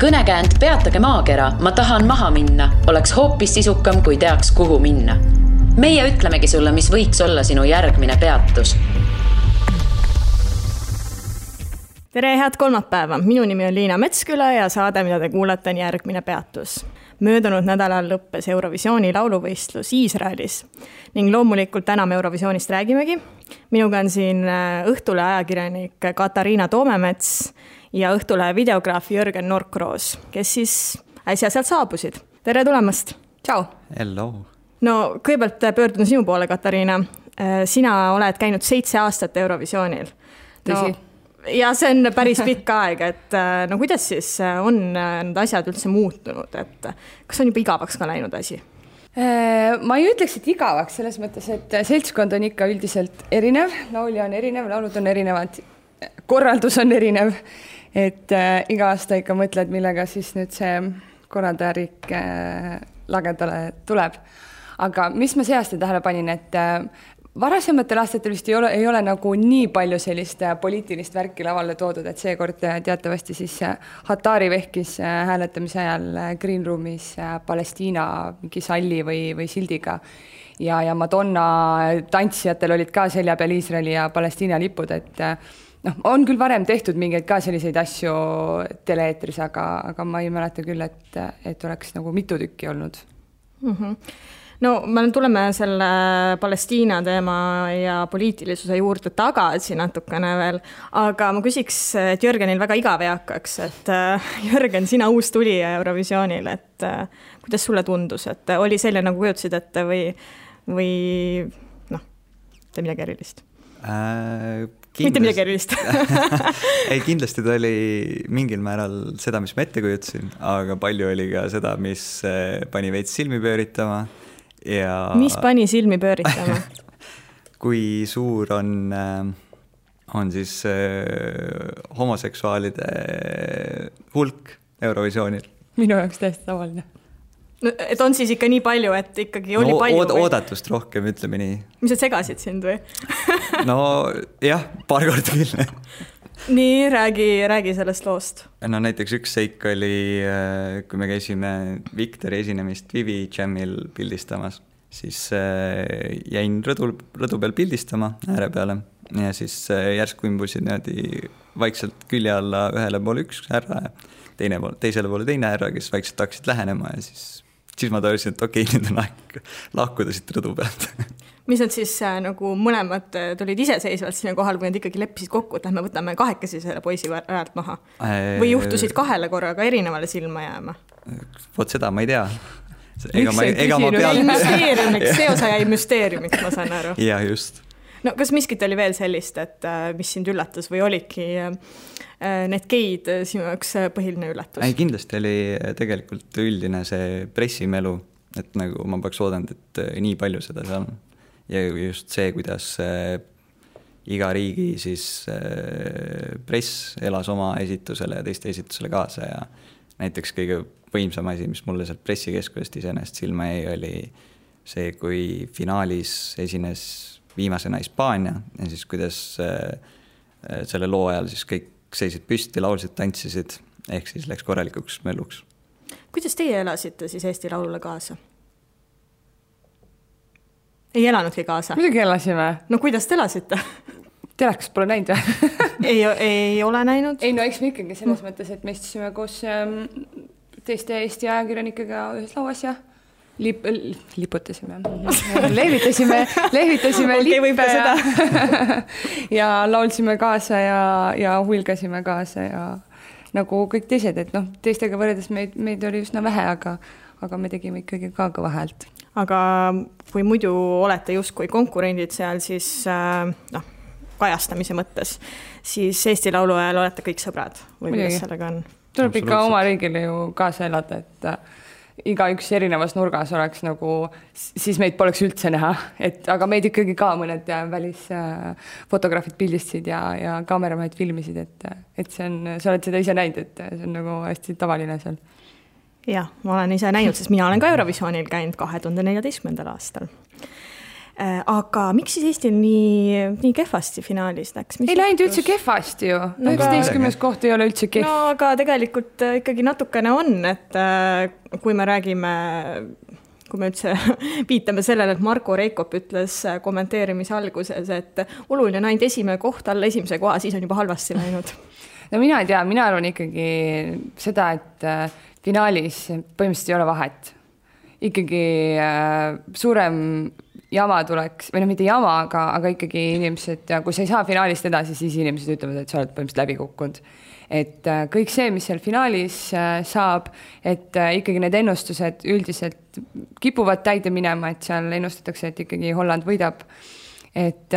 Kõnekäänd Peatage maakera, ma tahan maha minna oleks hoopis sisukam, kui teaks, kuhu minna. Meie ütlemegi sulle, mis võiks olla sinu järgmine peatus. Tere, head kolmapäeva! Minu nimi on Liina Metsküla ja saade, mida te kuulete, on järgmine peatus. Möödunud nädalal lõppes Eurovisiooni lauluvõistlus Iisraelis ning loomulikult täna me Eurovisioonist räägimegi. Minuga on siin Õhtule ajakirjanik Katariina Toomemets ja Õhtulehe videograaf Jörgen Norkroos, kes siis äsja sealt saabusid. Tere tulemast! Ciao! Hello! No, kõigepealt pöördun sinu poole, Katariina. Sina oled käinud 7 aastat Eurovisioonil. Tõsi. Ja see on päris pikk aeg, et no kuidas siis on need asjad üldse muutunud, et kas on juba igavaks ka läinud asi? Ma ei ütleks, et igavaks selles mõttes, et seltskond on ikka üldiselt erinev, laulja on erinev, laulud on erinevad, korraldus on erinev, et iga aasta ikka mõtled, millega siis nüüd see korraldajarik lagedale tuleb. Aga mis ma see aasta tähele panin, et varasematel aastatel vist ei ole nagu nii palju sellist poliitilist värki lavale toodud, et seekord teatavasti siis Hatari vehkis hääletamise ajal Green Roomis Palestiina mingi salli või sildiga ja Madonna tantsijatel olid ka selja peal Iisraeli ja Palestiina lipud, et on küll varem tehtud mingeid ka selliseid asju teleeetris, aga ma ei mäleta küll, et oleks nagu mitu tükki olnud. No, me tuleme selle Palestiina teema ja poliitilisuse juurde tagasi natukene veel, aga ma küsiks, et Jörgenil väga igav ei hakkaks, et Jörgen, sina uus tulija Eurovisioonil, et kuidas sulle tundus, et oli selline nagu kujutasid ette või te midagi erilist? Mitte midagi erilist. Ei, kindlasti ta oli mingil määral seda, mis ma ette kujutasin, aga palju oli ka seda, mis pani veits silmi pööritama. Ja... Mis pani silmi pööritama? Kui suur on siis homoseksuaalide hulk Eurovisioonil? Minu jaoks täiesti tavaline. No, et on siis ikka nii palju, et ikkagi oli palju? Oodatust rohkem, ütleme nii. Mis sa segasid sind või? No jah, paar korda küll. Nii, räägi sellest loost. No näiteks üks seik oli, kui me käisime Victori esinemist Vivi Jamil pildistamas, siis jäin rõdu peal pildistama ääre peale ja siis järsku imbusid vaikselt külje alla ühele poole üks härra ja teisele poole teine härra, kes vaikselt hakkasid lähenema ja siis ma tajusin, et okei, nüüd on aeg lahkuda siit rõdu pealt. Mis nad siis nagu mõlemad tulid iseseisvalt sinna kohal, või nad ikkagi leppisid kokku, et me võtame kahekesi selle poisi ajalt maha? Või juhtusid kahele korraga erinevale silma jääma? Vot seda ma ei tea. See osa jäi müsteeriumiks, ma saan aru. Ja just. No kas miskit oli veel sellist, et mis sind üllatas või olidki need geid sinu jaoks põhiline üllatus? Ei, kindlasti oli tegelikult üldine see pressimelu, et nagu ma peaks oodanud, et nii palju seda seal on. Ja just see, kuidas iga riigi siis press elas oma esitusele ja teiste esitusele kaasa ja näiteks kõige võimsam asi, mis mulle sealt pressikeskusest iseenesest silma jäi, oli see, kui finaalis esines viimasena Hispaania ja siis kuidas selle loo ajal siis kõik seisid püsti, laulsid, tantsisid, ehk siis läks korralikuks mölluks. Kuidas teie elasite siis Eesti Laulule kaasa? Ei elanudki kaasa? Muidugi elasime. No kuidas te elasite? Telekas pole näinud või? ei ole näinud? Ei, no eks me ikkagi selles mõttes, et me istusime koos teiste Eesti ajakirjanikega ühes lauas ja liputasime. Lehvitasime lippe ja laulsime kaasa ja huilgasime kaasa ja nagu kõik teised, et teistega võrredes meid oli üsna vähe, aga me tegime ikkagi ka kõva häält. Aga kui muidu olete justkui konkurendid seal, siis kajastamise mõttes, siis Eesti Laulu ajal olete kõik sõbrad või kuidas sellega on? Tuleb ikka oma riigile ju kaasa elada, et iga üks erinevas nurgas oleks nagu, siis meid poleks üldse näha, aga meid ikkagi ka mõned välisfotograafid pildistasid ja kaameramehed filmisid, et sa oled seda ise näinud, et see on nagu hästi tavaline seal. Jah, ma olen ise näinud, sest mina olen ka Eurovisioonil käinud 2014. aastal. Aga miks siis Eestil nii kehvasti finaalis läks? Ei läinud üldse kehvasti ju. 19. koht ei ole üldse kehv. No aga tegelikult ikkagi natukene on, et kui me räägime, kui me üldse viitame sellele, et Marko Reikop ütles kommenteerimise alguses, et oluline on ainult esimene koht alla esimese koha, siis on juba halvasti läinud. No mina ei tea, mina arvan ikkagi seda, et finaalis põhimõtteliselt ei ole vahet. Ikkagi suurem jama tuleks, või no mitte jama, aga ikkagi inimesed, ja kui sa ei saa finaalist edasi, siis inimesed ütlevad, et sa oled põhimõtteliselt läbi kukkunud. Et kõik see, mis seal finaalis saab, et ikkagi need ennustused üldiselt kipuvad täide minema, et seal ennustatakse, et ikkagi Holland võidab. Et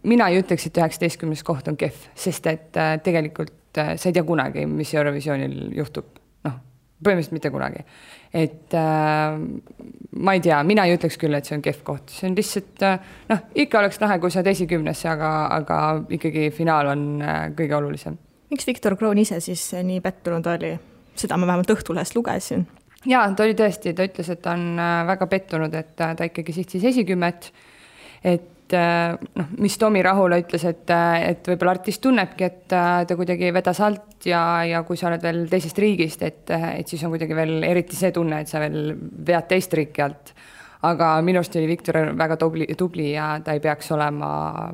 mina ei ütleks, et 19. koht on kehv, sest et tegelikult sa ei tea kunagi, mis Eurovisioonil juhtub. Noh, põhimõtteliselt mitte kunagi. Et ma ei tea, mina ei ütleks küll, et see on kehv koht. See on lihtsalt, noh, ikka oleks lahe, kui sa oled esikümnesse, aga ikkagi finaal on kõige olulisem. Miks Viktor Kroon ise siis nii pettunud oli? Seda ma vähemalt Õhtulehest lugesin. Jaa, ta oli tõesti, ta ütles, et ta on väga pettunud, et ta ikkagi sihtis esikümmet, et noh, mis Tomi Rahula ütles, et võib-olla artist tunnebki, et ta kuidagi vedas alt ja kui sa oled veel teisest riigist, et siis on kuidagi veel eriti see tunne, et sa veel vead teist riiki alt. Aga minust oli Viktor väga tubli ja ta ei peaks olema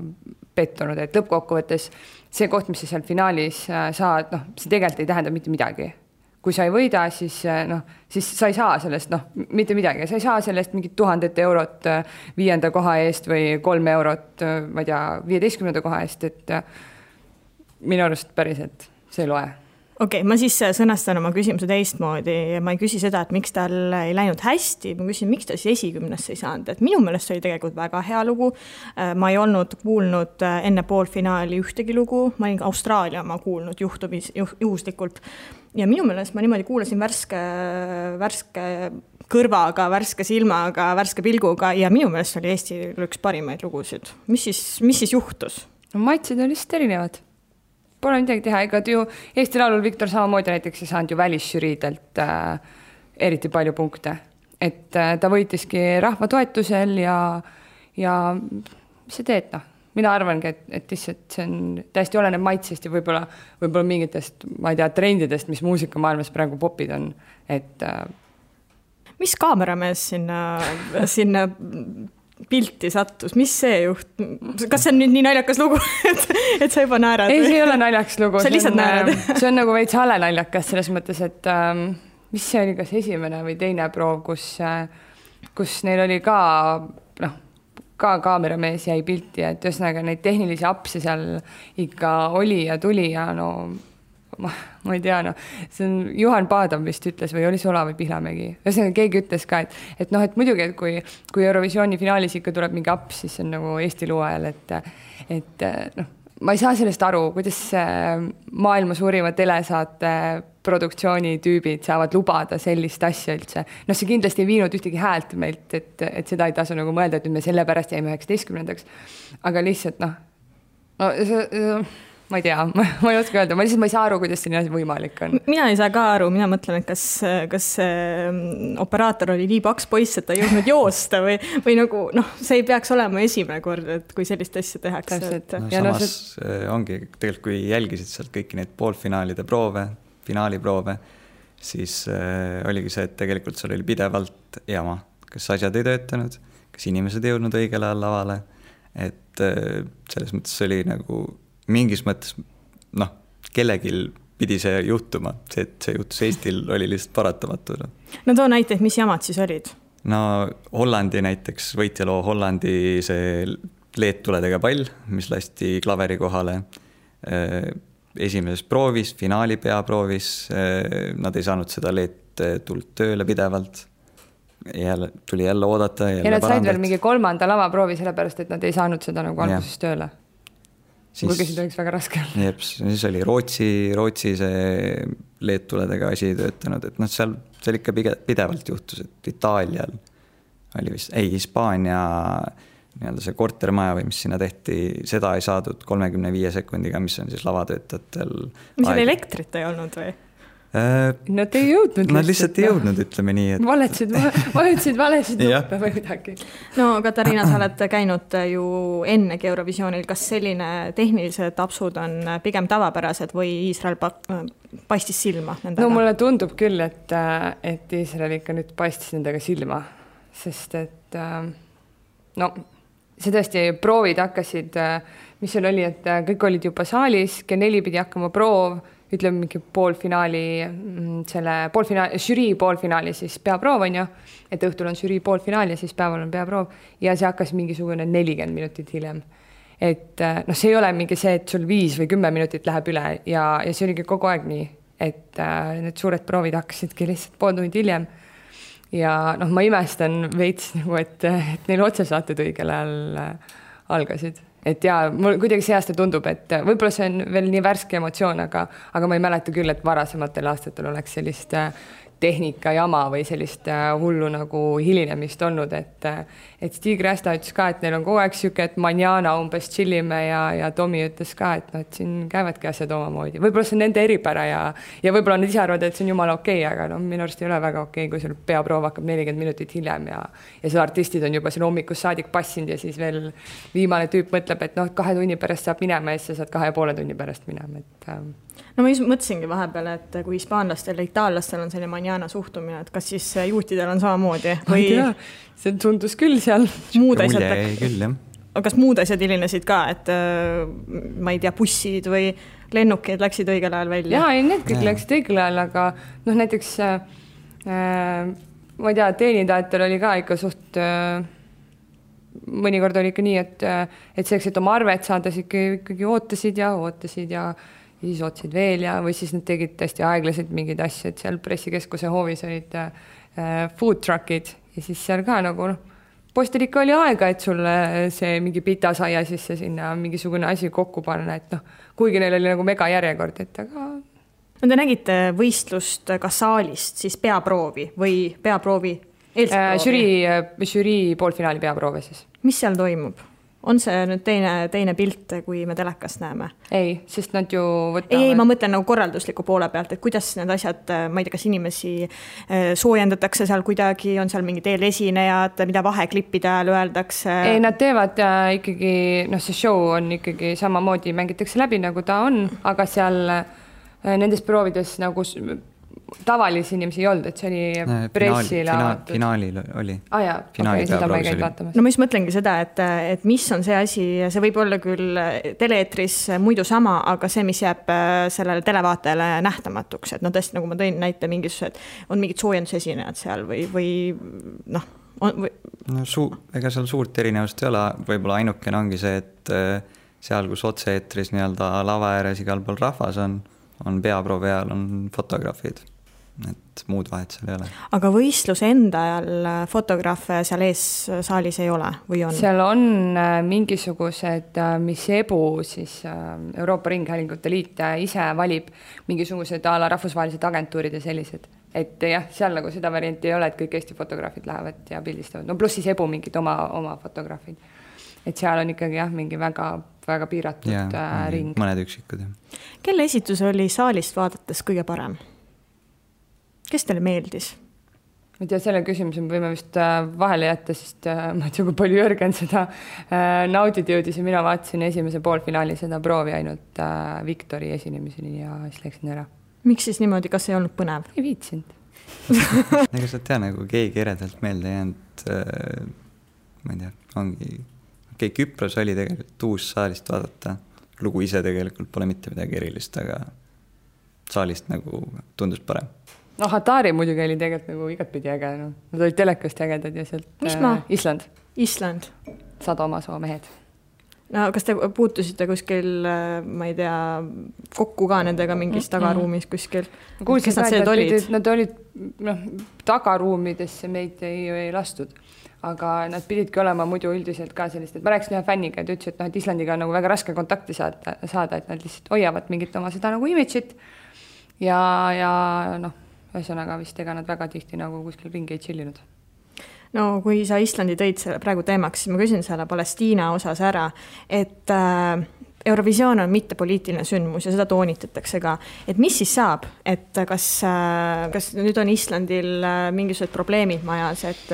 pettunud, et lõppkokkuvõttes see koht, mis sa seal finaalis saad, noh, see tegelikult ei tähenda mitte midagi. Kui sa ei võida, siis sa ei saa sellest, mitte midagi. Sa ei saa sellest mingit 1000 eurot 5. koha eest või 3 eurot, ma ei tea, 15. koha eest, et minu arust päriselt see ei loe. Okei, ma siis sõnastan oma küsimuse teistmoodi ja ma ei küsi seda, et miks tal ei läinud hästi, ma küsin, miks ta siis esikümnesse ei saanud, et minu meelest oli tegelikult väga hea lugu. Ma ei olnud kuulnud enne poolfinaali ühtegi lugu, ma olin Austraalia ma kuulnud juhuslikult ja minu meelest ma niimoodi kuulasin värske kõrvaga, värske silmaga, värske pilguga ja minu meelest oli Eesti üks parimaid lugusid. Mis siis juhtus? No, maitsid on lihtsalt erinevad. Pole midagi teha, ega ju Eesti Laulul Viktor samamoodi näiteks ei saanud ju välisžüriidelt eriti palju punkte. Et ta võitiski rahva toetusel ja mis sa teed, noh? Mina arvangi, et lihtsalt see on täiesti oleneb maitsest ja võib-olla mingitest, ma ei tea, trendidest, mis muusikamaailmas praegu popid on. Et mis kaameramees sinna pilti sattus, mis see juht? Kas see on nüüd nii naljakas lugu, et sa juba naerad? Ei, see ei ole naljakas lugu. Sa lihtsalt naerad. See on nagu veits hale naljakas selles mõttes, et mis see oli kas esimene või teine proov, kus neil oli ka kaameramees jäi pilti, et ühesõnaga neid tehnilisi apse seal ikka oli ja tuli ja no ma ei tea, see on Juhan Paadam vist ütles või oli see Ola või Pihlamägi. Ühesõnaga keegi ütles ka, et muidugi, et kui Eurovisiooni finaalis ikka tuleb mingi aps, siis see on nagu Eesti loo ajal, et ma ei saa sellest aru, kuidas maailma suurima telesaate produktsiooni tüübid saavad lubada sellist asja üldse. See kindlasti ei viinud ühtegi häält meilt, et seda ei tasu nagu mõelda, et me selle pärast jäime 19. Aga lihtsalt ma ei tea, ma ei oska öelda, ma ei saa aru, kuidas see nii võimalik on. Mina ei saa ka aru, mina mõtlen, et kas operaator oli nii paks poiss, et ta ei jõudnud joosta või nagu, see ei peaks olema esimene kord, et kui sellist asja tehakse. Samas ongi, tegelikult kui jälgisid sealt kõiki neid poolfinaalide proove, finaaliproove, siis oligi see, et tegelikult seal oli pidevalt jama. Kas asjad ei töötanud, kas inimesed ei jõudnud õigel ajal lavale, et selles mõttes oli nagu mingis mõttes, kellegil pidi see juhtuma, see, et see juhtus Eestil oli lihtsalt paratamatu. No too näiteid, mis jamad siis olid? Hollandi näiteks, võitjaloo Hollandi see leedtuledega pall, mis lasti klaveri kohale esimeses proovis, finaali peaproovis, nad ei saanud seda leedtuld tööle pidevalt. Tuli jälle oodata. Ja nad said veel mingi 3. lavaproovi sellepärast, et nad ei saanud seda nagu alguses tööle. Kuigi seda oleks väga raske. Siis oli Rootsi see leedtuledega asi töötanud, et seal ikka pidevalt juhtus, et Itaalial oli vist, Hispaania see kortermaja või mis sinna tehti, seda ei saadud 35 sekundiga, mis on siis lavatöötajatel. Mis seal elektrit ei olnud või? Nad ei jõudnud. Nad lihtsalt ei jõudnud, ütleme nii. Et... Valetasid valesid nuppe või midagi. No Katariina, sa oled käinud ju ennegi Eurovisioonil. Kas selline tehnilised apsud on pigem tavapärased või Iisrael paistis silma nendega? No mulle tundub küll, et Iisrael ikka nüüd paistis nendega silma, sest et no see tõesti proovid hakkasid, mis seal oli, et kõik olid juba saalis, kell 4 pidi hakkama proov, ütleme mingi žürii poolfinaali, siis peaproov on ju, et õhtul on žürii poolfinaal ja siis päeval on peaproov ja see hakkas mingisugune 40 minutit hiljem. Et noh, see ei ole mingi see, et sul 5 või 10 minutit läheb üle ja see oligi kogu aeg nii, et need suured proovid hakkasidki lihtsalt pool tundi hiljem ja noh, ma imestan veits nagu, et neil otsesaated õigel ajal algasid. Et jaa, mul kuidagi see aasta tundub, et võib-olla see on veel nii värske emotsioon, aga ma ei mäleta küll, et varasematel aastatel oleks sellist tehnika jama või sellist hullu nagu hilinemist olnud, et Stig Rästa ütles ka, et neil on kogu aeg siuke, et manjana umbes chillime ja Tomi ütles ka, et no, et siin käivadki asjad omamoodi. Võib-olla see on nende eripära ja võib-olla nad ise arvavad, et see on jumala okei, aga no, minu arust ei ole väga okei, kui sul peaproov hakkab 40 minutit hiljem ja see artistid on juba siin hommikus saadik passinud ja siis veel viimane tüüp mõtleb, et noh, 2 tunni pärast saab minema ja siis sa saad 2,5 tunni pärast minema, et no ma just mõtlesingi vahepeal, et kui hispaanlastel ja itaallastel on selline manjana suhtumine, et kas siis juutidel on samamoodi või see tundus küll seal. Kas muud asjad hilinesid ka, et ma ei tea, bussid või lennukid läksid õigel ajal välja? Jaa, need kõik läksid õigel ajal, aga noh, näiteks ma ei tea, teenindajatel oli ka ikka suht mõnikord oli ikka nii, et selleks, et oma arvet saada, ikkagi ootasid ja siis otsid veel ja või siis nad tegid tõesti aeglaselt mingeid asju, et seal pressikeskuse hoovis olid food truckid ja siis seal ka nagu postil ikka oli aega, et sulle see mingi pitasaia sisse sinna mingisugune asi kokku panna, et noh, kuigi neil oli nagu mega järjekord, et aga... No te nägite võistlust ka saalist, siis peaproovi või peaproovi eelproovi? Žürii poolfinaali peaproove siis. Mis seal toimub? On see nüüd teine pilt, kui me telekast näeme? Ei, sest nad ju võtavad... Ei, ma mõtlen nagu korraldusliku poole pealt, et kuidas need asjad, ma ei tea, kas inimesi soojendatakse seal kuidagi, on seal mingid eelesinejad, mida vaheklippide ajal öeldakse? Ei, nad teevad ikkagi, noh, see show on ikkagi samamoodi, mängitakse läbi, nagu ta on, aga seal nendes proovides nagu... tavalisi inimesi ei olnud, et see oli pressile finaalil oli. Jaa, okei, seda ma ei käinud vaatamas. No ma just mõtlengi seda, et mis on see asi, see võib olla küll teleetris muidu sama, aga see, mis jääb sellele televaatajale nähtamatuks, et no tõesti, nagu ma tõin näite mingisugused, on mingid soojendusesinejad seal või noh. No ega seal suurt erinevust ei ole, võib-olla ainukene ongi see, et seal, kus otse-eetris nii-öelda lava ääres igal pool rahvas on peaproovi ajal, on fotograafid. Et muud vahet seal ei ole. Aga võistluse enda ajal fotograafe seal ees saalis ei ole või on? Seal on mingisugused, mis EBU, siis Euroopa Ringhäälingute Liit ise valib mingisugused ala rahvusvahelised agentuurid ja sellised. Et jah, seal nagu seda varianti ei ole, et kõik Eesti fotograafid lähevad ja pildistavad. No pluss siis EBU mingid oma fotograafid. Et seal on ikkagi jah, mingi väga piiratud ring. Mõned üksikud. Kelle esitus oli saalist vaadates kõige parem? Kes teile meeldis? Ma ei tea, selle küsimuse me võime vist vahele jätta, sest ma ei tea, kui palju Jürgen seda naudid jõudis ja mina vaatasin esimese poolfinaali seda proovi ainult Viktori esinemiseni ja siis läksin ära. Miks siis niimoodi, kas ei olnud põnev? Ei viitsinud. Ega sa tea, nagu keegi eredalt meelde jäänud, ma ei tea, ongi... Küpros oli tegelikult uus saalist vaadata. Lugu ise tegelikult pole mitte midagi erilist, aga saalist nagu tundus parem. No Hatari muidugi oli tegelikult nagu igatpidi äge. No. Nad olid telekast ägedad ja sealt... Mis maa? Island. Sadomasoo mehed. No kas te puutusite kuskil, ma ei tea, kokku ka nendega mingis tagaruumis kuskil? Kuulsin ka, et nad olid tagaruumidesse meid ei lastud. Aga nad pididki olema muidu üldiselt ka sellist, et ma rääkisin ühe fänniga, et ütles, et Islandiga on nagu väga raske kontakti saada, et nad lihtsalt hoiavad mingit oma seda nagu image'it ja noh, ühesõnaga vist ega nad väga tihti nagu kuskil ringi ei chillinud. No kui sa Islandi tõid praegu teemaks, siis ma küsin selle Palestiina osas ära, et Eurovisioon on mitte poliitiline sündmus ja seda toonitatakse ka, et mis siis saab, et kas nüüd on Islandil mingisugused probleemid majas, et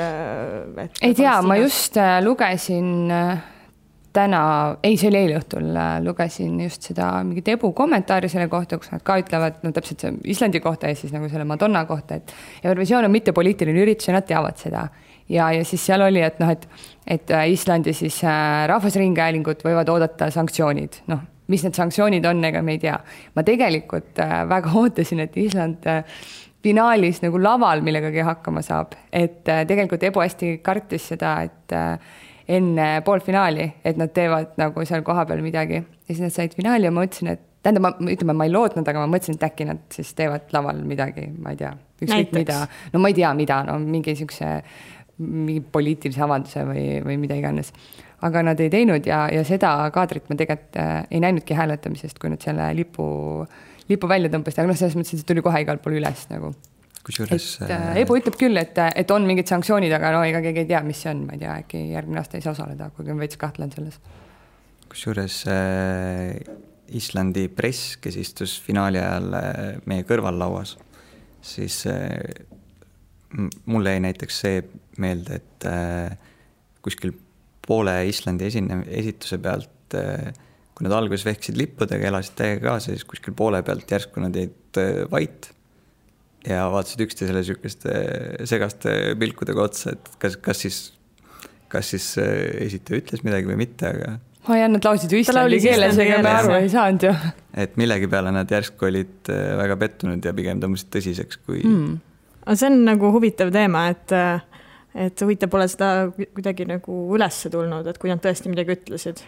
ei tea, ma just lugesin täna, see oli eile õhtul, lugesin just seda mingit Ebu kommentaari selle kohta, kus nad ka ütlevad, no täpselt see Islandi kohta ja siis nagu selle Madonna kohta, et Eurovisioon on mitte poliitiline üritus ja nad teavad seda. Ja siis seal oli, et et Islandi siis rahvusringhäälingud võivad oodata sanktsioonid. Mis need sanktsioonid on, ega me ei tea. Ma tegelikult väga ootasin, et Island finaalis nagu laval millegagi hakkama saab. Et tegelikult Ebu hästi kartis seda, et enne poolfinaali, et nad teevad nagu seal koha peal midagi. Ja siis nad said finaali ja ma mõtlesin, et ma ei lootnud, aga ma mõtlesin, et äkki nad siis teevad laval midagi, ma ei tea. Mida. No ma ei tea, mida, mingi poliitilise avalduse või mida iganes. Aga nad ei teinud ja seda kaadrit ma tegelikult ei näinudki hääletamisest, kui nad selle lipu välja tõmbasid, aga selles mõttes, et see tuli kohe igal pool üles nagu. Kusjuures... Ebu ütleb küll, et on mingid sanktsioonid, aga ega keegi ei tea, mis see on, ma ei tea, äkki järgmine aasta ei saa osaleda, kuigi on veits kahtlen selles. Kusjuures Islandi press, kes istus finaali ajal meie kõrval lauas, siis mulle jäi näiteks see meelde, et kuskil poole Islandi esituse pealt, kui nad alguses vehksid lippudega, elasid täiega kaasa, siis kuskil poole pealt järsku nad jäid vait ja vaatasid üksteisele sükeste segaste pilkudega otsa, et kas siis esitaja ütles midagi või mitte, aga nad lausid ju Islandi keeles, ega me aru ei saanud ju. Et millegi peale nad järsku olid väga pettunud ja pigem tõmbasid tõsiseks kui... See on nagu huvitav teema, et huvitav pole seda kuidagi nagu ülesse tulnud, et kui nad tõesti midagi ütlesid.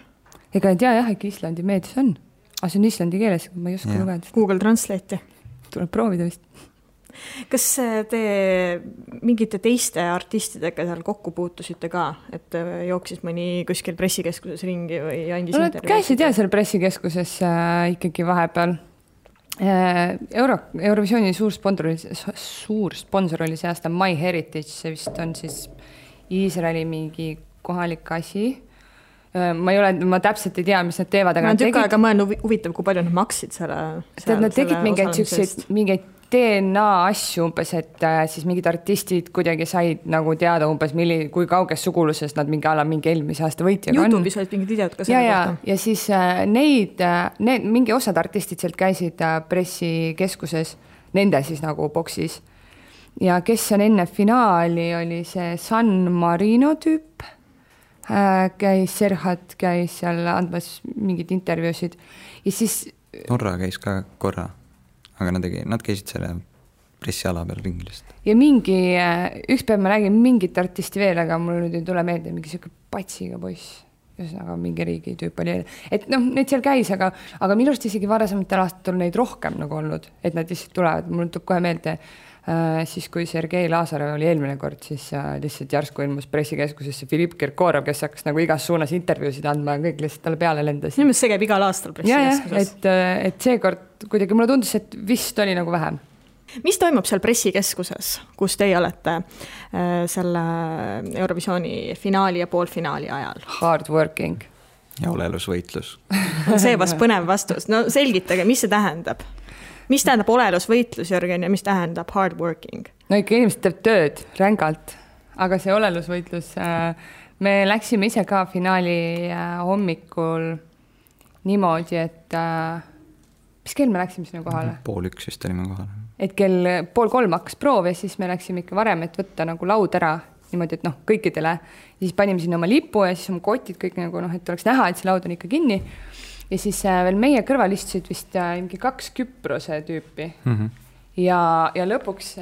Ega ei tea jah, äkki Islandi meedias on. Aga see on Islandi keeles, ma ei oska lugeda. Google Translate'i. Tuleb proovida vist. Kas te mingite teiste artistidega seal kokku puutusite ka, et jooksis mõni kuskil pressikeskuses ringi või andis intervjuu? Käisid jah seal pressikeskuses ikkagi vahepeal. Eurovisiooni suur sponsor oli see aasta My Heritage, see vist on siis Iisraeli mingi kohalik asi. Ma täpselt ei tea, mis nad teevad. Ma tükk aega mõelnud huvitav, kui palju nad maksid selle nad tegid mingeid DNA asju umbes, et siis mingid artistid kuidagi said nagu teada umbes, kui kauges suguluses nad mingi eelmise aasta võitjaga on. YouTube'is olid mingid videod ka selle kohta. Ja siis mingi osad artistid sealt käisid pressikeskuses, nende siis nagu boksis. Ja kes on enne finaali, oli see San Marino tüüp, Serhat käis seal andmas mingid intervjuusid. Ja siis... Norra käis ka korra. Aga nad käisid selle pressiala peal ringilist. Ja üks päev ma nägin mingit artisti veel, aga mul nüüd ei tule meelde mingi selline patsiga poiss, ühesõnaga mingi riigi tüüp oli. Et neid seal käis, aga minu arust isegi varasematel aastatel neid rohkem nagu olnud, et nad lihtsalt tulevad. Mul tuleb kohe meelde, siis kui Sergei Lazarev oli eelmine kord, siis lihtsalt järsku ilmus pressikeskusesse Filipp Kirkorov, kes hakkas nagu igas suunas intervjuusid andma ja kõik lihtsalt talle peale lendas. Nimelt see käib igal aastal pressikeskuses. Et seekord kuidagi mulle tundus, et vist oli nagu vähem. Mis toimub seal pressikeskuses, kus teie olete selle Eurovisiooni finaali ja poolfinaali ajal? Hard working. Ja olelusvõitlus. See vast põnev vastus. No selgitage, mis see tähendab? Mis tähendab olelusvõitlus, Jörgen, ja mis tähendab hard working? No ikka inimesed teeb tööd rängalt, aga see olelusvõitlus, me läksime ise ka finaali hommikul niimoodi, et mis kell me läksime sinna kohale? 2:30 vist olime kohale. Et kell 2:30 hakkas proov ja siis me läksime ikka varem, et võtta nagu laud ära niimoodi, et kõikidele. Ja siis panime sinna oma lipu ja siis oma kotid kõik nagu, et oleks näha, et see laud on ikka kinni. Ja siis veel meie kõrval istusid vist mingi 2 Küprose tüüpi. Ja lõpuks,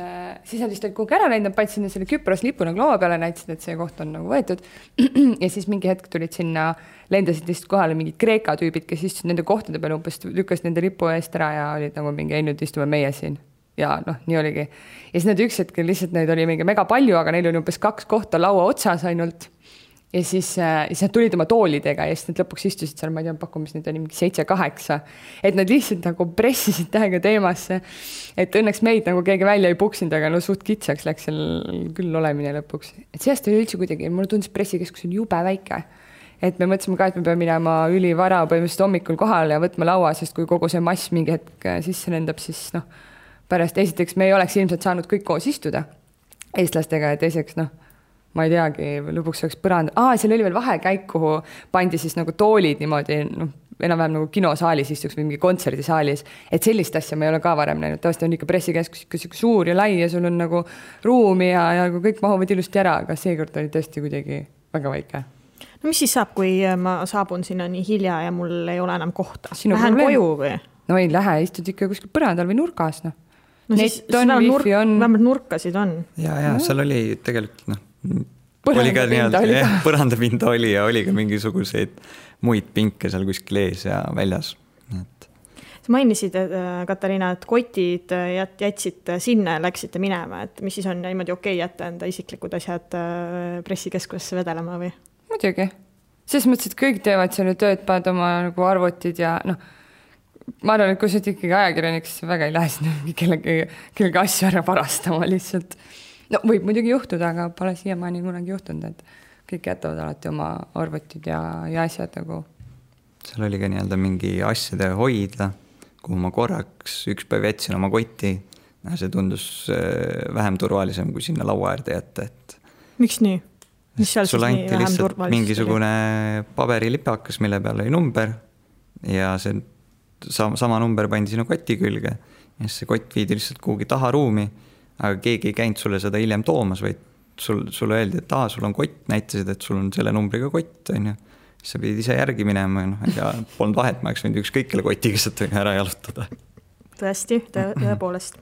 siis nad vist olid kuhugi ära läinud, paid sinna selle Küpros lipu nagu laua peale, näitasid, et see koht on nagu võetud. Ja siis mingi hetk tulid sinna, lendasid lihtsalt kohale mingid Kreeka tüübid, kes istusid nende kohtade peale, umbes lükkas nende lipu eest ära ja olid nagu mingi, nüüd istume meie siin. Ja nii oligi. Ja siis nad üks hetkel lihtsalt neid oli mingi mega palju, aga neil oli umbes 2 kohta laua otsas ainult. Ja siis nad tulid oma toolidega ja siis nad lõpuks istusid seal, ma ei tea, pakkumis neid oli mingi 7-8, et nad lihtsalt nagu pressisid tähega teemasse, et õnneks meid nagu keegi välja ei puksinud, aga suht kitsaks läks seal küll olemine lõpuks. Et sellest oli üldse kuidagi, mulle tundus pressikeskus on jube väike, et me mõtlesime ka, et me peame minema ülivara põhimõtteliselt hommikul kohale ja võtma laua, sest kui kogu see mass mingi hetk sisse lendab, siis pärast esiteks me ei oleks ilmselt saanud kõik koos istuda eestlastega ja teiseks ma ei teagi, lõpuks oleks põrand. Seal oli veel vahekäik, kuhu pandi siis nagu toolid niimoodi, enam-vähem nagu kinosaalis istuks või mingi kontserdisaalis, et sellist asja me ei ole ka varem näinud. Tavaliselt on ikka pressikeskus ikka suur ja lai ja sul on nagu ruumi ja kõik mahuvad ilusti ära, aga seekord oli tõesti kuidagi väga väike. No mis siis saab, kui ma saabun sinna nii hilja ja mul ei ole enam kohta? Lähen koju või? No ei lähe, istud ikka kuskil põrandal või nurgas. No siis vähemalt nurkasid on. Ja seal oli tegelikult põrandapinda oli ja oli ka mingisuguseid muid pinke seal kuskil ees ja väljas. Sa mainisid, Katariina, et kotid jätsid sinna ja läksite minema, et mis siis on niimoodi okei jätta enda isiklikud asjad pressikeskusesse vedelema või? Muidugi. Selles mõttes, et kõik teevad seal tööd, paned oma nagu arvutid ja ma arvan, et kui sa ikkagi ajakirjaniks, väga ei lähe sinna kellegi asju ära varastama lihtsalt. Võib muidugi juhtuda, aga pole siiamaani kunagi juhtunud, et kõik jätavad alati oma arvutid ja asjad nagu. Seal oli ka nii-öelda mingi asjade hoida, kuhu ma korraks üks päev jätsin oma kotti. See tundus vähem turvalisem, kui sinna laua äärde jätta. Miks nii? Sul anti lihtsalt mingisugune paberilipakas, mille peal oli number ja see sama number pandi sinu koti külge ja see kott viidi lihtsalt kuhugi taha ruumi, aga keegi ei käinud sulle seda hiljem toomas, vaid sulle öeldi, et sul on kott, näitasid, et sul on selle numbriga kott, on ju. Sa pidid ise järgi minema ja polnud vahet, ma oleks võinud ükskõikele kotiga sealt ära jalutada. Tõesti, tõepoolest.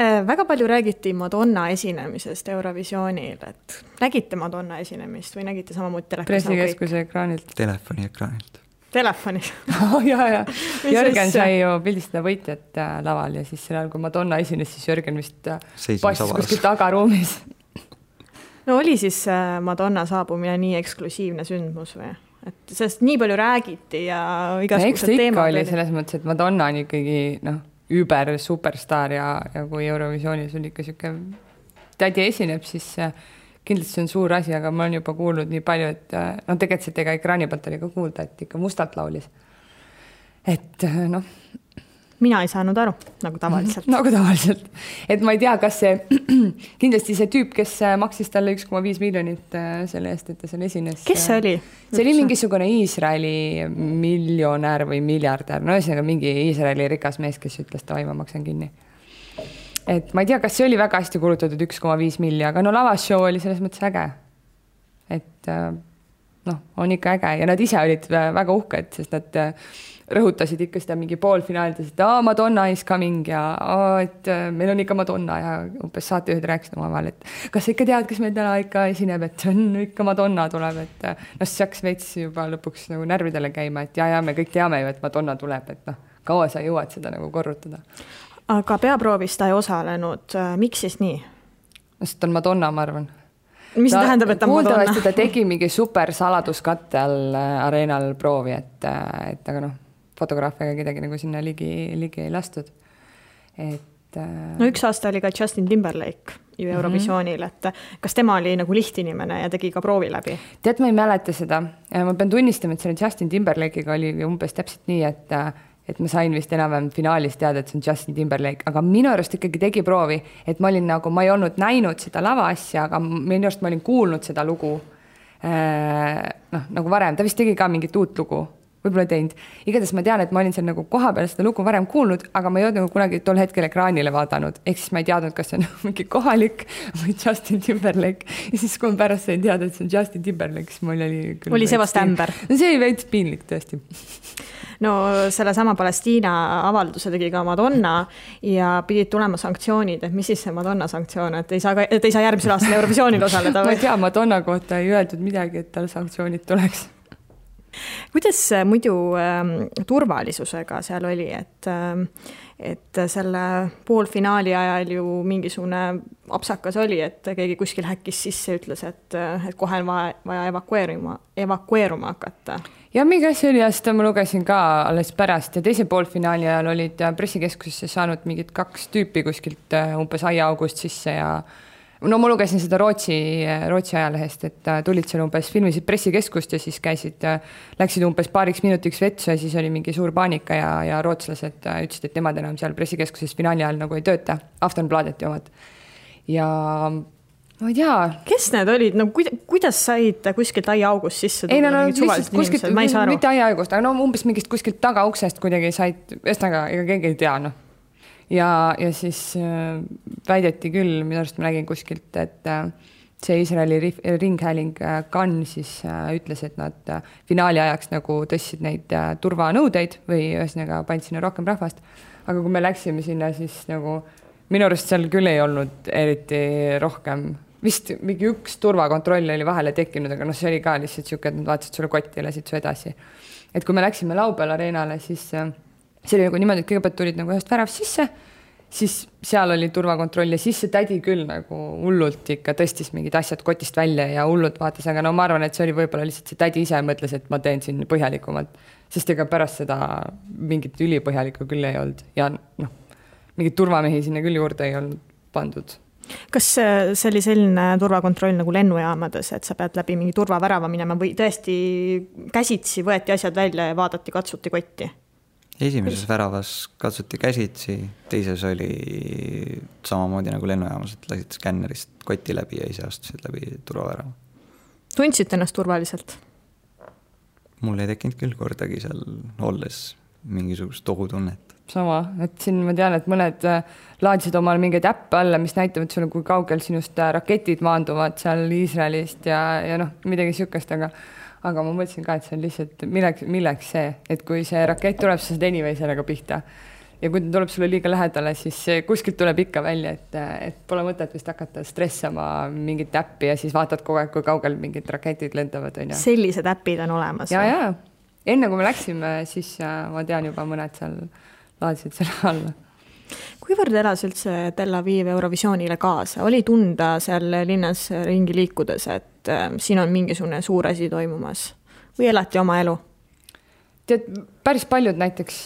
Väga palju räägiti Madonna esinemisest Eurovisioonil, et nägite Madonna esinemist või nägite samamoodi telekas? Pressikeskuse ekraanilt. Telefoni ekraanilt. Telefoni? Ja. Jörgen sai ju pildistada võitjat laval ja siis sellel, kui Madonna esines, siis Jörgen vist passis kuskil tagaruumis. No oli siis Madonna saabumine nii eksklusiivne sündmus või? Et sellest nii palju räägiti ja igasugused teemad. Oli selles mõttes, et Madonna on ikkagi über superstar ja kui Eurovisioonis on ikka siuke tädi esineb, siis kindlasti see on suur asi, aga ma olen juba kuulnud nii palju, et tegelikult ega ekraani pealt oli ka kuulda, et ikka mustalt laulis. Et Mina ei saanud aru, nagu tavaliselt. Nagu tavaliselt. Et ma ei tea, kas see kindlasti see tüüp, kes maksis talle 1,5 miljonit selle eest, et ta seal esines. Kes see oli? See oli mingisugune Iisraeli miljonär või miljardär. No ühesõnaga mingi Iisraeli rikas mees, kes ütles, et ma maksan kinni. Et ma ei tea, kas see oli väga hästi kulutatud 1,5 miljonit, aga lavashow oli selles mõttes äge. Et on ikka äge ja nad ise olid väga uhked, sest nad rõhutasid ikka seda mingi poolfinaalides, et Madonna is coming ja et meil on ikka Madonna ja umbes saatejuhid rääkisid omavahel, et kas sa ikka tead, kes meil täna ikka esineb, et on ikka Madonna tuleb, et see hakkas veits juba lõpuks nagu närvidele käima, et ja me kõik teame ju, et Madonna tuleb, et kaua sa jõuad seda nagu korrutada. Aga peaproovis ta ei osalenud. Miks siis nii? Sest on Madonna, ma arvan. Mis tähendab, et ta Madonna? Kuuldavasti ta tegi mingi super saladuskatte all areenal proovi, et aga fotograafiaga kedagi nagu sinna ligi ei lastud. Üks aasta oli ka Justin Timberlake ju Eurovisioonil, et kas tema oli nagu lihtinimene ja tegi ka proovi läbi? Tead, ma ei mäleta seda. Ma pean tunnistama, et selle Justin Timberlake'iga oli umbes täpselt nii, et ma sain vist enam finaalis teada, et see on Justin Timberlake, aga minu arust ikkagi tegi proovi, et ma ei olnud näinud seda lava asja, aga minu arust ma olin kuulnud seda lugu nagu varem, ta vist tegi ka mingit uut lugu, võib-olla teinud. Igatahes ma tean, et ma olin seal nagu koha peal seda lugu varem kuulnud, aga ma ei olnud nagu kunagi tol hetkel ekraanile vaadanud, ehk siis ma ei teadnud, kas see on mingi kohalik või Justin Timberlake ja siis kui ma pärast sain teada, et see on Justin Timberlake, siis mul oli see vast ämber? See oli veits piinlik tõesti. No selle sama Palestiina avalduse tegi ka Madonna ja pidid tulema sanktsioonid, et mis siis see Madonna sanktsioon, et ei saa järgmisel aastal Eurovisioonil osaleda? Ma ei tea, Madonna kohta ei öeldud midagi, et tal sanktsioonid tuleks. Kuidas muidu turvalisusega seal oli, et selle poolfinaali ajal ju mingisugune apsakas oli, et keegi kuskil häkkis sisse ütles, et kohe on vaja evakueeruma hakata? Ja mingi asi oli, seda ma lugesin ka alles pärast ja teise poolfinaali ajal olid pressikeskusesse saanud mingid 2 tüüpi kuskilt umbes aiaaugust sisse ja no ma lugesin seda Rootsi ajalehest, et tulid seal umbes, filmisid pressikeskust ja siis läksid umbes paariks minutiks vetsu ja siis oli mingi suur paanika ja rootslased ütlesid, et nemad enam seal pressikeskuses finaali ajal nagu ei tööta, Aftonbladeti omad. Ja ma ei tea. Kes need olid? No, kuidas said kuskilt aiaaugust sisse? Ei, no kuskilt, mitte aiaaugust, aga no umbes mingist kuskilt tagauksest kuidagi said, ühesõnaga, ega keegi ei tea, noh. Ja siis väideti küll, minu arust ma nägin kuskilt, et see Iisraeli ringhääling Kan siis ütles, et nad finaali ajaks nagu tõstsid neid turvanõudeid või ühesõnaga pand sinna rohkem rahvast. Aga kui me läksime sinna, siis nagu minu arust seal küll ei olnud eriti rohkem. Vist mingi üks turvakontroll oli vahele tekkinud, aga see oli ka lihtsalt siuke, et nad vaatasid sulle kotti ja läsid su edasi. Et kui me läksime Laupäeval areenale, siis see oli nagu niimoodi, et kõigepealt tulid nagu ühest väravst sisse, siis seal oli turvakontroll ja siis see tädi küll nagu hullult ikka tõstis mingid asjad kotist välja ja hullult vaatas, aga no ma arvan, et see oli võib-olla lihtsalt see tädi ise mõtles, et ma teen siin põhjalikumalt, sest ega pärast seda mingit ülipõhjalikku küll ei olnud ja noh, mingid turvamehi sinna küll juurde ei olnud pandud. Kas see oli selline turvakontroll nagu lennujaamades, et sa pead läbi mingi turvavärava minema või tõesti käsitsi võeti asjad välja ja vaadati, katsuti kotti? Esimeses väravas katsuti käsitsi, teises oli samamoodi nagu lennujaamas, et lasid skännerist kotti läbi ja ise astusid läbi turvavärava. Tundsid ennast turvaliselt? Mul ei tekkinud küll kordagi seal olles mingisugust ohutunnet. Sama, et siin ma tean, et mõned laadsid omal mingeid äppe alla, mis näitavad sulle, kui kaugel sinust raketid maanduvad seal Iisraelist ja noh, midagi sükast, aga ma mõtlesin ka, et see on lihtsalt milleks see, et kui see rakett tuleb, sa saad anyway sellega pihta. Ja kui ta tuleb sulle liiga lähedale, siis kuskilt tuleb ikka välja, et pole mõtet vist hakata stressama mingit äppi ja siis vaatad kogu aeg, kui kaugel mingid raketid lendavad. Sellised äpid on olemas? Ja. Enne kui me läksime, siis ma tean juba mõned seal laadsid selle alla. Kuivõrd elas üldse Tel Aviv Eurovisioonile kaasa? Oli tunda seal linnas ringi liikudes, et siin on mingisugune suur asi toimumas? Või elati oma elu? Tead, päris paljud näiteks,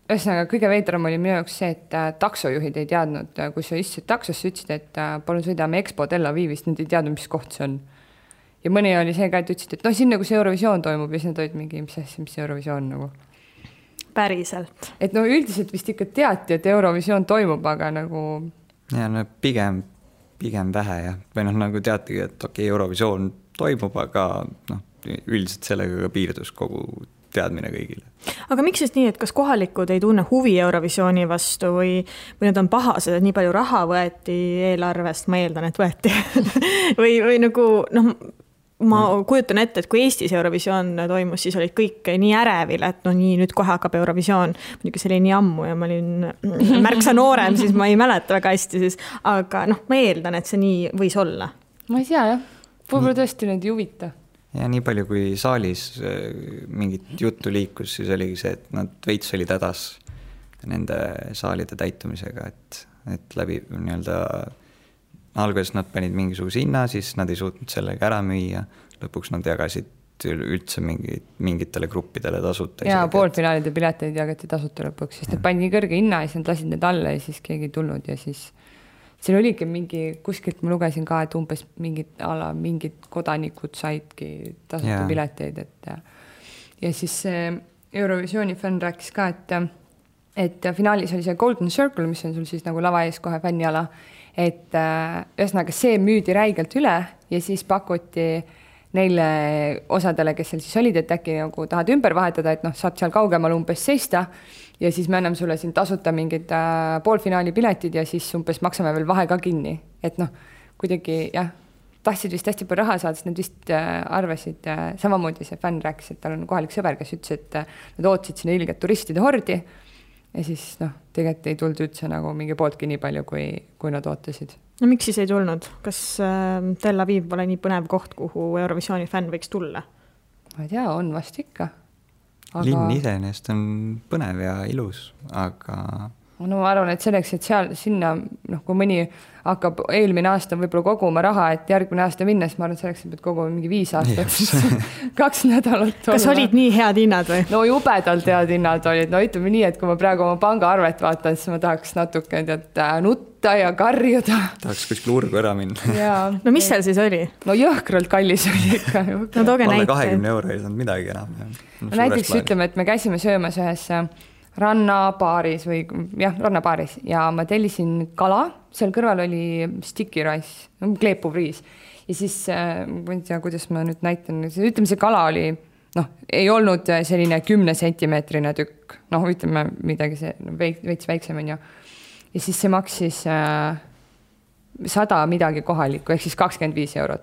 ühesõnaga kõige veidram oli minu jaoks see, et taksojuhid ei teadnud, kui sa istusid taksosse, ütlesid, et palun sõidame Expo Tel Avivist, nad ei teadnud, mis koht see on. Ja mõni oli see ka, et ütlesid, et no siin nagu see Eurovisioon toimub ja siis nad olid mingi, mis Eurovisioon nagu. Päriselt. Et no üldiselt vist ikka teati, et Eurovisioon toimub, aga nagu... Ja no pigem vähe ja või noh, nagu teatigi, et okei, Eurovisioon toimub, aga noh, üldiselt sellega piirdus kogu teadmine kõigile. Aga miks siis nii, et kas kohalikud ei tunne huvi Eurovisiooni vastu või nad on pahased, et nii palju raha võeti eelarvest, ma eeldan, et võeti või nagu noh, ma kujutan ette, et kui Eestis Eurovisioon toimus, siis olid kõik nii ärevil, et no nii, nüüd kohe hakkab Eurovisioon. Muidugi see oli nii ammu ja ma olin märksa noorem, siis ma ei mäleta väga hästi, siis, aga noh, ma eeldan, et see nii võis olla. Ma ei tea, jah. Võib-olla tõesti neid ei huvita. Ja nii palju, kui saalis mingit juttu liikus, siis oligi see, et nad veits olid hädas nende saalide täitumisega, et läbi nii-öelda alguses nad panid mingisuguse hinna, siis nad ei suutnud sellega ära müüa. Lõpuks nad jagasid üldse mingitele gruppidele tasuta. Ja poolfinaalide pileteid jagati tasuta lõpuks, sest nad pandi kõrge hinna ja siis nad lasid need alla ja siis keegi ei tulnud ja siis siin oligi mingi, kuskilt ma lugesin ka, et umbes mingid kodanikud saidki tasuta pileteid. Ja siis Eurovisiooni fänn rääkis ka, et finaalis oli see Golden Circle, mis on sul siis nagu lava ees kohe fänniala, et ühesõnaga see müüdi räigelt üle ja siis pakuti neile osadele, kes seal siis olid, et äkki nagu tahad ümber vahetada, et noh, saad seal kaugemal umbes seista ja siis me anname sulle siin tasuta mingid poolfinaali piletid ja siis umbes maksame veel vahe ka kinni. Et noh, kuidagi jah, tahtsid vist hästi palju raha saada, sest nad vist arvasid, samamoodi see fänn rääkis, et tal on kohalik sõber, kes ütles, et nad ootsid sinna ilget turistide hordi ja siis noh, tegelikult ei tulnud üldse nagu mingi pooltki nii palju, kui nad ootasid. No miks siis ei tulnud? Kas Tel Aviv pole nii põnev koht, kuhu Eurovisiooni fänn võiks tulla? Ma ei tea, on vast ikka. Linn iseenesest on põnev ja ilus, aga no ma arvan, et selleks, et sinna, kui mõni hakkab eelmine aasta võib-olla koguma raha, et järgmine aasta minna, siis ma arvan, et selleks pead koguma mingi 5 aastat, 2 nädalat. Kas olid nii head hinnad või? No jubedalt head hinnad olid. No ütleme nii, et kui ma praegu oma pangaarvet vaatan, siis ma tahaks natuke nutta ja karjuda. Tahaks kuskil urgu ära minna. No mis seal siis oli? No jõhkralt kallis oli ikka. No tooge näite. 20 € ei saanud midagi enam. Näiteks ütleme, et me käisime söömas ühes rannapaaris ja ma tellisin kala, seal kõrval oli sticky rice, kleepuv riis ja siis ma ei tea, kuidas ma nüüd näitan, ütleme see kala oli, ei olnud selline 10 sentimeetrine tükk, ütleme midagi see veits väiksem on ju ja siis see maksis 100 midagi kohalikku, ehk siis 25 €.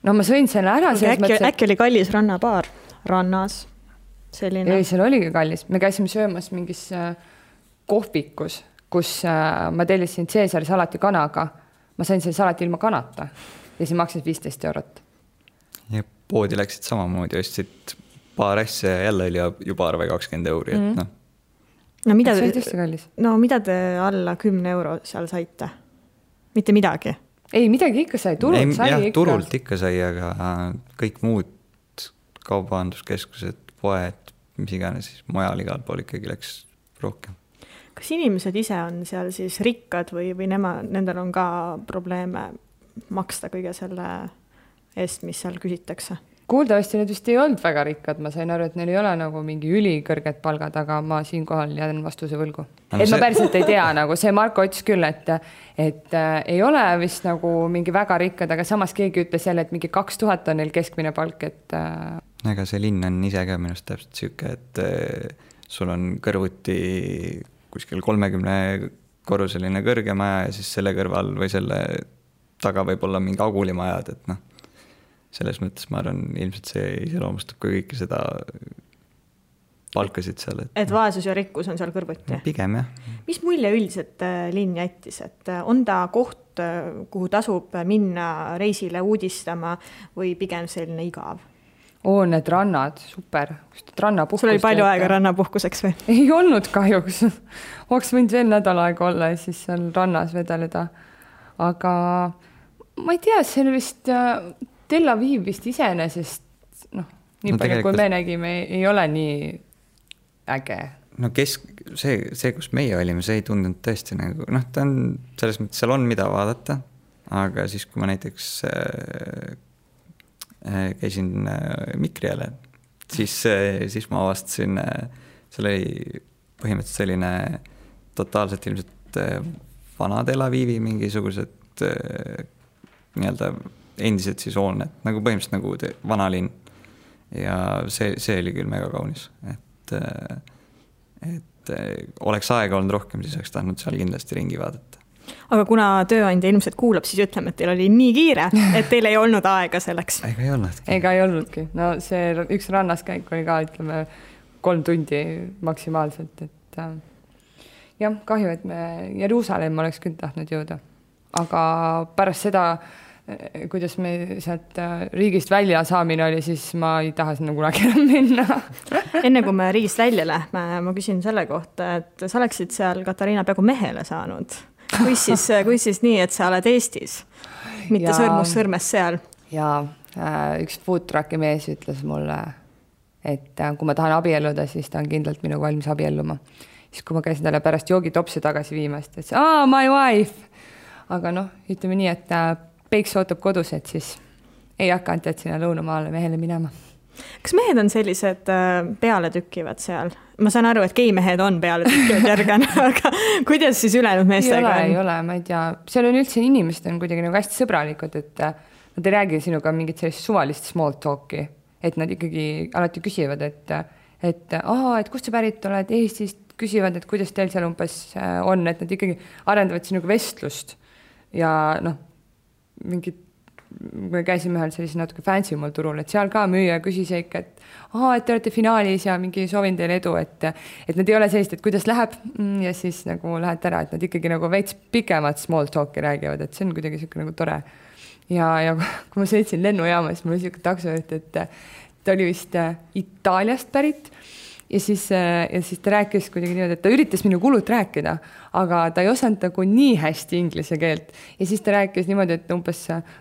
No ma sõin selle ära. Äkki oli kallis rannapaar rannas? Selline. Ei, seal oligi kallis. Me käisime söömas mingis kohvikus, kus ma tellisin Caesari salati kanaga. Ma sain selle salati ilma kanata ja see maksis 15 €. Ja poodi läksid samamoodi, ostsid paar asja ja jälle oli juba arve 20 €. No mida see oli tõesti kallis. No mida te alla 10 € seal saite? Mitte midagi? Ei, midagi ikka sai, turult sai ikka. Turult ikka sai, aga kõik muud kaubanduskeskused, poed, mis iganes, siis mujal igal pool ikkagi läks rohkem. Kas inimesed ise on seal siis rikkad või nendel on ka probleeme maksta kõige selle eest, mis seal küsitakse? Kuuldavasti need vist ei olnud väga rikkad, ma sain aru, et neil ei ole nagu mingi ülikõrged palgad, aga ma siinkohal jään vastuse võlgu. Et ma päriselt ei tea, nagu see Marko ütles küll, et ei ole vist nagu mingi väga rikkad, aga samas keegi ütles jälle, et mingi 2000 on neil keskmine palk, et... Ega see linn on ise ka minust täpselt siuke, et sul on kõrvuti kuskil 30-korruseline kõrge maja ja siis selle kõrval või selle taga võib olla mingi agulimajad, et selles mõttes ma arvan, ilmselt see iseloomustab ka kõiki seda palkasid seal. Et vaesus ja rikkus on seal kõrvuti? Pigem, jah. Mis mulje üldiselt linn jättis? Et on ta koht, kuhu tasub minna reisile uudistama või pigem selline igav? Need rannad, super. Sul oli palju aega rannapuhkuseks või? Ei olnud kahjuks. Oleks võinud veel nädal aega olla ja siis seal rannas vedeleda. Aga ma ei tea, see on vist... Tel Aviv vist iseenesest, nii palju kui me nägime, ei ole nii äge. No see, kus meie olime, see ei tundunud tõesti nagu, ta on selles mõttes, seal on mida vaadata, aga siis, kui ma näiteks käisin Mikriale, siis ma avastasin, seal oli põhimõtteliselt selline totaalselt ilmselt vana Tel Avivi mingisugused nii-öelda endised siis hooned, nagu põhimõtteliselt nagu vanalinn ja see oli küll mega kaunis, et oleks aega olnud rohkem, siis oleks tahtnud seal kindlasti ringi vaadata. Aga kuna tööandja ilmselt kuulab, siis ütleme, et teil oli nii kiire, et teil ei olnud aega selleks. Ega ei olnudki. No see üks rannaskäik oli ka, ütleme, 3 tundi maksimaalselt, et jah, kahju, et me Jeruusalemma oleks küll tahtnud jõuda. Aga pärast seda kuidas me sealt riigist välja saamine oli, siis ma ei taha sinna kunagi enam minna. Enne kui me riigist välja lähme, ma küsin selle kohta, et sa oleksid seal, Katariina, peaaegu mehele saanud. Kui siis nii, et sa oled Eestis, mitte sõrmus seal? Ja üks foodtrucki mees ütles mulle, et kui ma tahan abielluda, siis ta on kindlalt minuga valmis abielluma. Siis kui ma käisin talle pärast joogitopsi tagasi viimast, et my wife! Aga ütleme nii, et Peiks ootab kodus, et siis ei hakanud, et sinna lõunamaale mehele minema. Kas mehed on sellised peale tükivad seal? Ma saan aru, et geimehed on peale tükivad järgane, aga kuidas siis ülejäänud meestega on? Ei ole, ma ei tea. Seal on üldse inimesed on kuidagi nagu hästi sõbralikud, et nad ei räägi sinuga mingit sellist suvalist small talki, et nad ikkagi alati küsivad, et kust sa pärit oled Eestist, küsivad, et kuidas teil seal umbes on, et nad ikkagi arendavad sinuga vestlust ja mingid, me käisime ühel sellise natuke fancy mul turul, et seal ka müüja küsis ikka, et te olete finaalis ja mingi soovin teile edu, et nad ei ole sellist, et kuidas läheb ja siis nagu lähed ära, et nad ikkagi nagu veits pikemat small talki räägivad, et see on kuidagi siuke nagu tore. Ja kui ma sõitsin lennujaama, siis mul oli siuke taksojuht, et ta oli vist Itaaliast pärit ja siis ta rääkis kuidagi niimoodi, et ta üritas minu kulut rääkida, aga ta ei osanud nagu nii hästi inglise keelt. Ja siis ta rääkis niimoodi, et umbes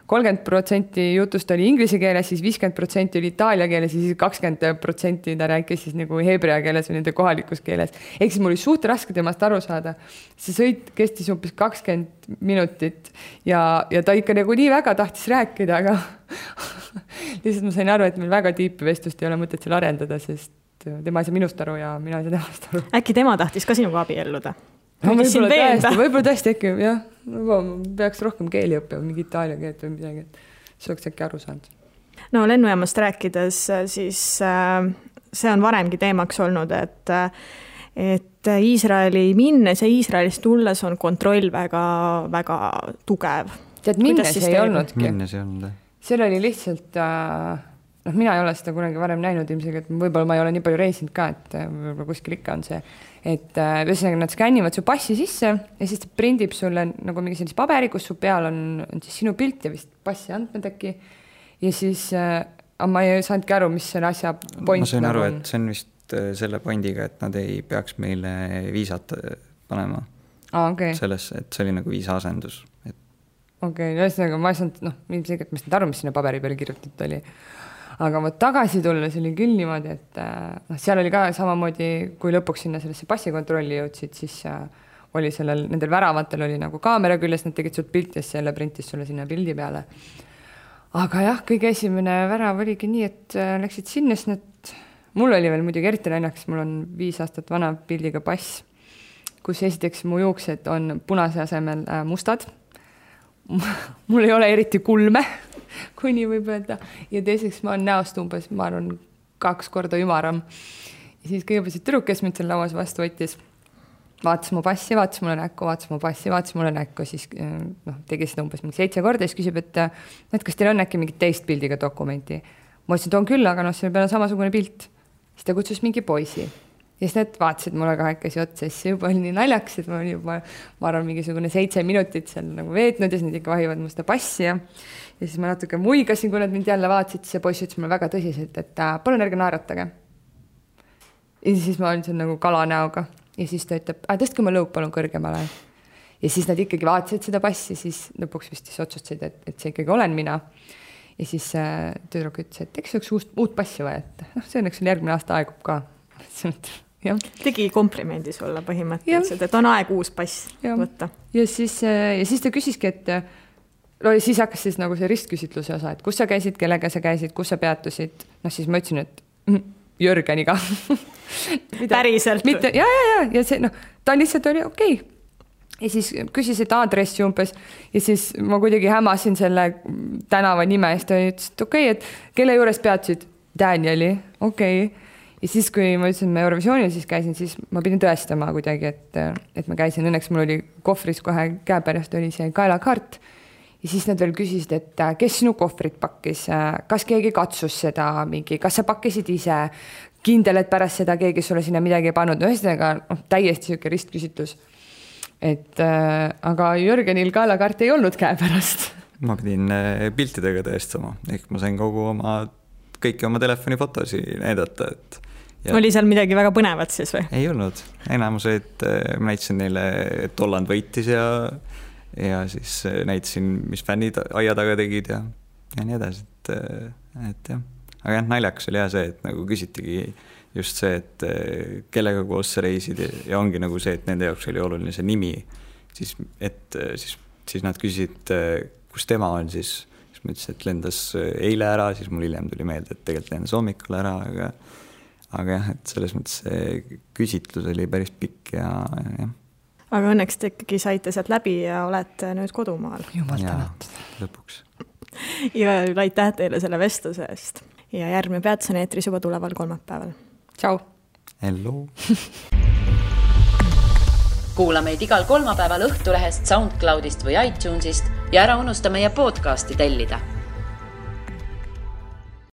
30% jutust oli inglise keeles, siis 50% oli itaalia keeles ja siis 20% ta rääkis siis nagu hebrea keeles või nende kohalikus keeles. Ehk siis mul oli suht raske temast aru saada. See sõit kestis umbes 20 minutit ja ta ikka nagu nii väga tahtis rääkida, aga lihtsalt ma sain aru, et meil väga tiipi vestlust ei ole mõtet seal arendada, sest tema ei saa minust aru ja mina ei saa temast aru. Äkki tema tahtis ka sinuga abielluda? No, võib-olla tõesti äkki, jah. Peaks rohkem keeli õppima, mingi itaalia keelt või midagi, et see oleks äkki aru saanud. No lennujaamast rääkides, siis see on varemgi teemaks olnud, et Iisraeli minnes ja Iisraelist tulles on kontroll väga, väga tugev. Tead, minnes ei olnudki. Minnes ei olnud. Seal oli lihtsalt... mina ei ole seda kunagi varem näinud ilmselt, et võib-olla ma ei ole nii palju reisinud ka, et võib-olla kuskil ikka on see, et ühesõnaga nad skännivad su passi sisse ja siis ta prindib sulle nagu mingi sellise paberi, kus su peal on siis sinu pilt ja vist passi andmed äkki ja siis ma ei saanudki aru, mis selle asja point. Ma sain aru, et see on vist selle pointiga, et nad ei peaks meile viisat panema sellesse, et see oli nagu viisaasendus. Okei, ühesõnaga ma ei saanud, ilmselgelt ma ei saanud aru, mis sinna paberi peale kirjutatud oli. Aga ma tagasi tulla, see oli küll niimoodi, et seal oli ka samamoodi, kui lõpuks sinna sellesse passikontrolli jõudsid, siis oli nendel väravatel oli nagu kaamera küljes, nad tegid sult pilti ja selle printis sulle sinna pildi peale. Aga jah, kõige esimene värav oligi nii, et läksid sinna, sest mul oli veel muidugi eriti näljaks, mul on 5 aastat vana pildiga pass, kus esiteks mu juuksed on punase asemel mustad. Mul ei ole eriti kulme, kui nii võib öelda. Ja teiseks ma olen näost umbes, ma arvan, 2 korda ümaram. Ja siis kõigepealt see tüdruk, kes mind seal lauas vastu võttis, vaatas mu passi, vaatas mulle näkku, vaatas mu passi, vaatas mulle näkku, siis tegi seda umbes 7 korda ja siis küsib, et kas teil on äkki mingit teist pildiga dokumenti. Ma ütlesin, et on küll, aga selle peale samasugune pilt. Siis ta kutsus mingi poisi. Ja siis need vaatasid mulle kahekesi otsa, siis juba oli nii naljaks, et ma olin juba, ma arvan, mingisugune 7 minutit seal nagu veetnud ja siis nad ikka vahivad mu seda passi ja siis ma natuke muigasin, kui nad mind jälle vaatasid, siis see poiss ütles mulle väga tõsiselt, et palun ärge naeratage. Ja siis ma olin seal nagu kalanäoga ja siis ta ütleb, tõstke ma lõup palun kõrgemale. Ja siis nad ikkagi vaatasid seda passi, siis lõpuks vist otsustasid, et see ikkagi olen mina. Ja siis tüdruk ütles, et eks oleks uut passi vaja, et see õnneks järgmine aasta aegub ka. Ja. Tegi komplimendi sulle põhimõtteliselt, et on aeg uus pass võtta. Ja siis ta küsiski, et siis hakkas siis nagu see ristküsitluse osa, et kus sa käisid, kellega sa käisid, kus sa peatusid. Siis ma ütlesin, et Jürgeniga. Päriselt? Ja see, ta lihtsalt oli okei. Ja siis küsis, et aadressi umbes ja siis ma kuidagi hämasin selle tänava nime ja siis ta ütles, et okei, et kelle juures peatusid? Danieli, okei. Ja siis, kui ma ütlesin, et ma Eurovisioonil siis käisin, siis ma pidin tõestama kuidagi, et ma käisin. Õnneks mul oli kohvris kohe käepärast oli see kaelakaart. Ja siis nad veel küsisid, et kes sinu kohvrit pakkis, kas keegi katsus seda mingi, kas sa pakkisid ise, kindel, et pärast seda keegi sulle sinna midagi ei pannud. Ühesõnaga täiesti siuke ristküsitlus. Aga Jürgenil kaelakaart ei olnud käepärast. Ma pidin piltidega tõestama, ehk ma sain kõiki oma telefonifotosi näidata, et oli seal midagi väga põnevat siis või? Ei olnud. Enamused ma näitasin neile, et Holland võitis ja siis näitasin, mis fännid aia taga tegid ja nii edasi. Et jah. Aga jah, naljakas oli see, et nagu küsitigi just see, et kellega koos sa reisid ja ongi nagu see, et nende jaoks oli oluline see nimi. Siis nad küsisid, kus tema on siis ma ütlesin, et lendas eile ära, siis mul hiljem tuli meelde, et tegelikult lendas hommikul ära, aga jah, et selles mõttes see küsitlus oli päris pikk ja. Aga õnneks te ikkagi saite sealt läbi ja olete nüüd kodumaal. Jumal tänatud. Lõpuks. Ja aitäh teile selle vestluse eest. Ja järgmine peatus on eetris juba tuleval kolmapäeval. Tšau. Hello. Kuula meid igal kolmapäeval Õhtulehest, SoundCloudist või iTunesist ja ära unusta meie podcasti tellida.